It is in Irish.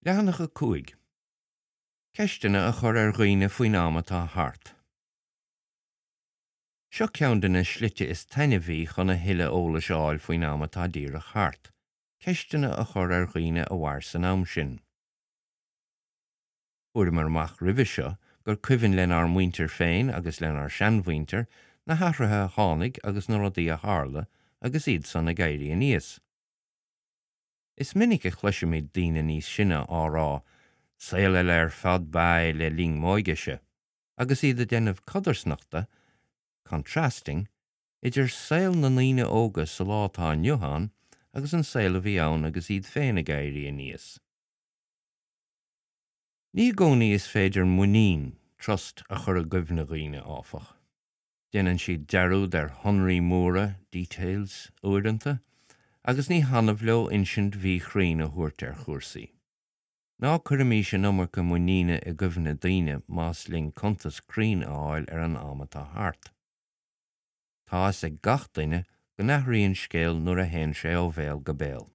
Leathanach 5. Ceisteanna a chur ar dhaoine faoin am atá thart. Seo ceann de na slite is taitneamhaí chun a thuilleadh eolais a fháil faoin am atá díreach thart, ceisteanna a chur ar dhaoine a mhair san am sin. Fuaireamar amach roimhe seo gur cuimhin lenár muintir féin agus lenár seanmhuintir na hathruithe a tháinig agus na rudaí a tharla agus iad san ag éirí aníos. Is minic a chloisimid daoine níos sine á rá, 'Saol eile ar fad ba ea é le linn m'óigese', agus iad ag déanamh codarsnachta, contrasting, idir saol na ndaoine óga sa lá atá inniu ann agus an saol a bhí ann agus iad féin ag éirí aníos. Ní i gcónaí is féidir muinín, trust, a chur i gcuimhne dhaoine, áfach. Déanann siad dearúd ar shonraí móra, details, uaireanta, agus ní hannamh leo insint mhíchruinn a thabhairt ar chúrsaí. Ná cuirimís an iomarca muiníne i gcuimhne daoine más linn cuntas cruinn a fháil ar an am atá thart. Tá fhios ag gach duine go n-athraíonn scéal nuair a théann sé ó bhéal go béal.